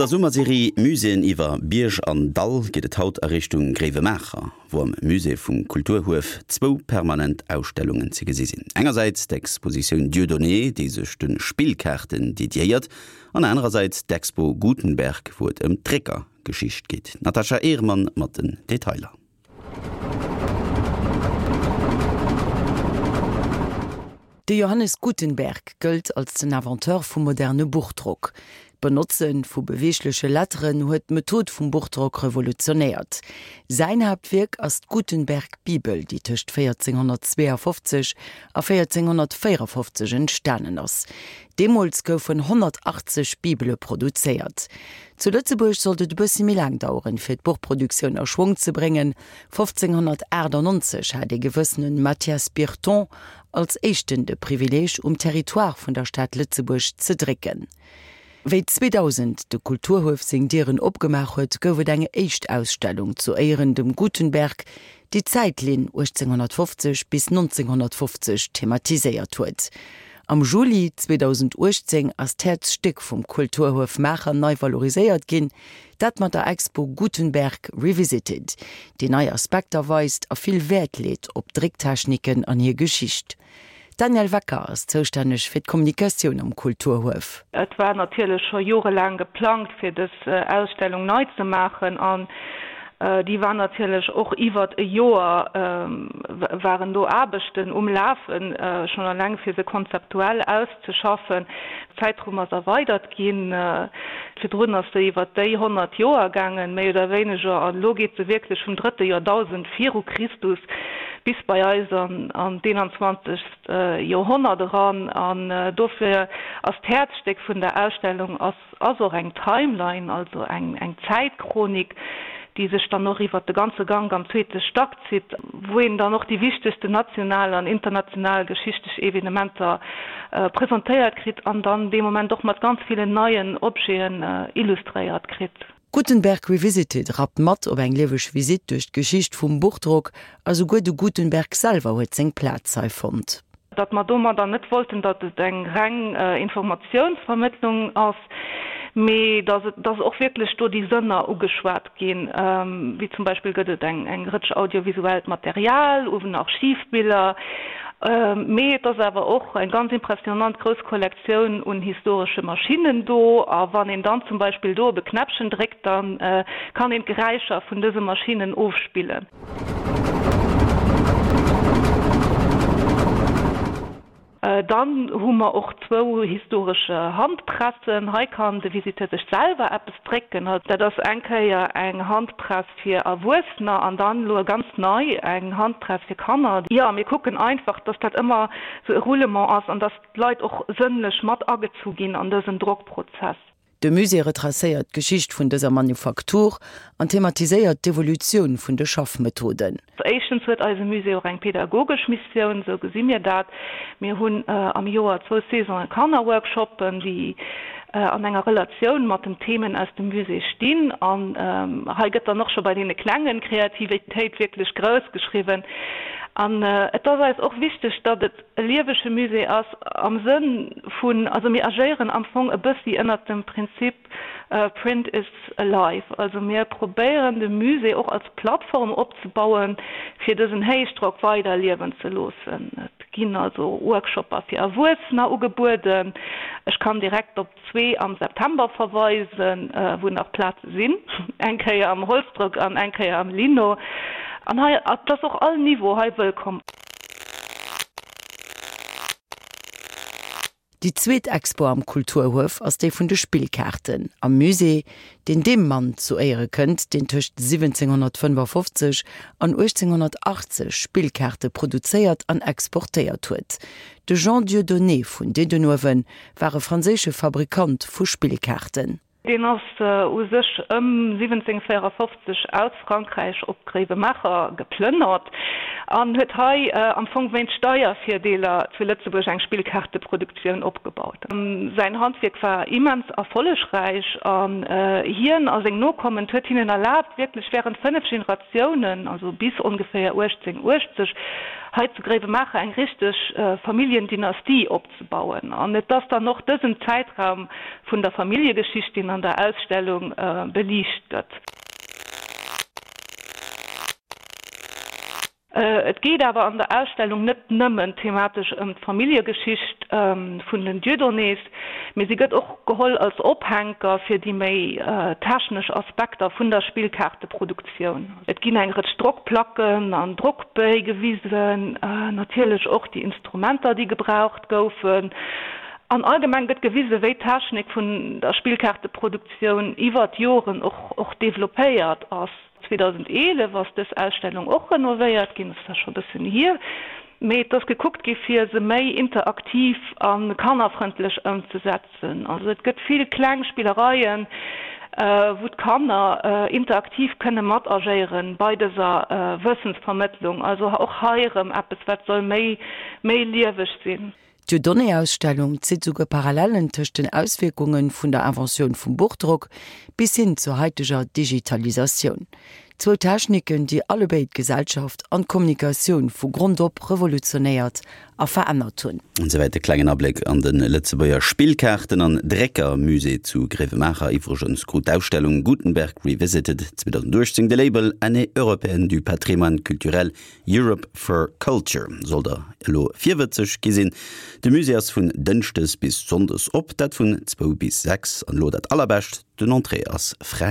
der Summerserie Muséeën iwwer Bierg an Dall geet et haut a Richtung Gréiwemaacher, wou am Musée vum Kulturhuef zwou permanent Ausstellungen ze gesi sinn. Engersäits d'Expositioun Dieudonné, déi sech de Spillkaarten dediéiert, an anerersäits d'Expo Gutenberg, wou et ëm d'Dréckergeschicht geet. D'Natasha Ehrmann mat den Detailer. De Johannes Gutenberg gëllt als den Inventeur vum moderne Buchdrock. D'Benotze vu beweegleche Letteren huet d'Method vum Buchdrock revolutionéiert. Säin Haaptwierk ass d'Gutenberg-Bibel, déi tëscht 1452 a 1454 entstanen ass. Deemools goufen 180 Bibele produzéiert. Zu Lëtzebuerg sollt et e bëssi méi laang daueren, fir d'Buchproduktioun a Schwong ze bréngen. 1598 hat ee gewëssene Mathias Birton als éischten de Privileeg, um Territoire vun der Stad Lëtzebuerg ze drécken. Wéi 2000 de Kulturhuef seng Dieren opgemaach huet, gouf et eng éischt Ausstellung zu Éieren dem Gutenberg, déi d'Zäitlinn 1850 bis 1950 thematiséiert huet. Am Juli 2018 ass d'Häerzstéck vum Kulturhuef Maacher nei valoriséiert ginn, dat mat der Expo Gutenberg Revisited, déi nei Aspekter weist a vill Wäert leet op Drécktechniken an hir Geschicht. D'Danièle Wecker ass zoustänneg fir d'Kommunikatioun am Kulturhuef. Et war natierlech scho jorelaang geplangt, fir dës Ausstellung nei ze maachen an déi war natierlech och iwwert e Joer waren do Aarbechten um Lafen, schonn alleng fir se konzeptuell auszeschaffen. D'Zäitrumm ass erweidert ginn. Virdrun ass se iwwert déi 100 Joer gaangen, méi oder wéineger, an elo geet se wierklech vum drëtte Joerdausend viru Christus bis bei eis an d'eenanzwanzegst Joerhonnert eran. An dofir ass d'Häerzstéck vun der Ausstellung ass ass och eng Timeline, also eng Zäitchronik, déi sech dann och iwwert de ganze Gank am zweete Stack zitt, wou een dann och déi wichtegsten national an international geschichtlech Evenementer presentéiert kritt an dann dee Moment och mat ganz villen neien Objeten illustréiert kritt. Gutenberg Revisited rappt mat op eng lieweg Visitt duerch d'Geschicht vum Buchdrock a souguer de Gutenberg selwer huet seng Plaz hei fonnt. Datt mer domadder net wollten, datt et eng reng Informatiounsvermëttlung ass, mee datt et, datt och wierklech do déi Sënner ugeschwat ginn, wéi zum Beispill gëtt et eng eng Rëtsch audiovisuellt Material, uwen Archivbiller, mee et ass awer och eng ganz impressionant grouss Kollektioun un historesche Maschinnen do. A wann een dann zum Beispill do op e Knäppchen dréckt, da kann een d'Geräischer vun dëse Maschinnen ofspillen. Dann hu mer och zwou historesch Handpressen. Hei kann de Visiteur sech selwer eppes drécken. Dat ass eng Kéier eng Handpress fir Erwuessener an dann elo ganz nei eng Handpress fir Kanner. Jo, mir kucken einfach, dass dat ëmmer sou e Roulement ass an dass d'Leit och sënnlech mat agezu ginn an dësen Drockprozess. De Musée retracéiert d'Geschicht vun dëser Manufaktur an thematiséiert d'Evolutioun vun de Schaffmethoden. Éischtens huet eise Musée och eng pedagogesch Missioun, esou gesi mir dat. Mir hunn am Joer zwou Saisonen Kannerworkshoppen, déi an enger Relatioun mat den Themen aus dem Musée stinn. An hei gëtt dann och scho bei deene Klengen Kreativitéit wierklech grouss geschriwwen. An et ass eis och wichteg, datt et e liewege Musée ass am Sënn vun, also mir agéieren am Fong e bëssi ënnert dem Prinzip Print is alive. Also mir probéieren de Musée och als Plattform opzebauen, fir dësen Héichdrock weider liewen ze loossen. Et ginn also Workshopper fir Erwuessener ugebueden. Ech kann direkt op zwee am September verweisen, wou nach Plaze sinn, eng Kéier am Holzdrock an eng Kéier am Lino. An hei ass och all Niveau hei wëllkomm. Déi zweet Expo am Kulturhuef ass déi vun de Spillkaarten am Musée, deen deem Mann zu Éiere kënnt, deen tëscht 1755 an 1880 Spillkaarte produzéiert an exportéiert huet. De Jean Dieudonné vun Diddenuewen war e franséische Fabrikant vu Spillkaarten. Deen ass u sech ëm 1754 aus Frankräich op Gréiwemaacher geplënnert an huet hei am Fong wéinst Steiervirdeeler zu Lëtzebuerg eng Spillkaarteproduktioun opgebaut. Säin Handwierk war immens erfollegräich an hien a seng Nokommen, et huet hinnen erlaabt, wierklech wärend 5 Generatiounen, also bis ongeféier 1880, hei zu Gréiwemaacher eng richteg Familljendynastie opzebauen. An et ass dann och dësen Zäitraum. vun der Familljegeschicht, deen an der Ausstellung beliicht gëtt. Et geet awer an der Ausstellung net nëmmen thematesch ëm d'Familljegeschicht vun den Dieudonnés, mee si gëtt och geholl als Ophänker fir déi méi technesch Aspekter vun der Spillkaarteproduktioun. Et ginn eng Rëtsch Drockplacken an Drockbéi gewisen, natierlech och déi Instrumenter, déi gebraucht goufen. An allgemeng gëtt gewisen, wéi d'Technik vun der Spillkaarteproduktioun iwwer d'Joren och developpéiert ass. 2011 ass dës Ausstellung och renovéiert ginn, dat ass scho e bëssen hier, mee et ass gekuckt gi fir se méi interaktiv a kannerfrëndlech ëmzesetzen. Also et gëtt vill kleng Spillereien, wou d'Kanner interaktiv kënne mat agéiere bei dëser Wëssensvermëttlung. Also och hei erëm eppes wat soll méi méi lieweg sinn. D'Dieudonné-Ausstellung zitt souguer Parallellen tëscht den Auswierkunge vun der Inventioun vum Buchdrock bis hin zur haiteger Digitalisatioun. Zwou Techniken, déi allebéid d'Gesellschaft an d'Kommunikatioun vu Grond op revolutionéiert a verännert hunn. An souwäit e klengen Abléck an de Lëtzebuerger Spillkaarten an Dréckermusée zu Gréiwemaacher. Iwwregens krut d'Ausstellung Gutenberg Revisited 2018 de Label Année européenne du patrimoine culturel Europe for Culture. Sollt der elo virwëtzeg gi sinn, de Musée ass vun Dënschdes bis Sonndes op, dat vun zwou bis 6. An elo dat allerbescht, den Entrée ass fräi.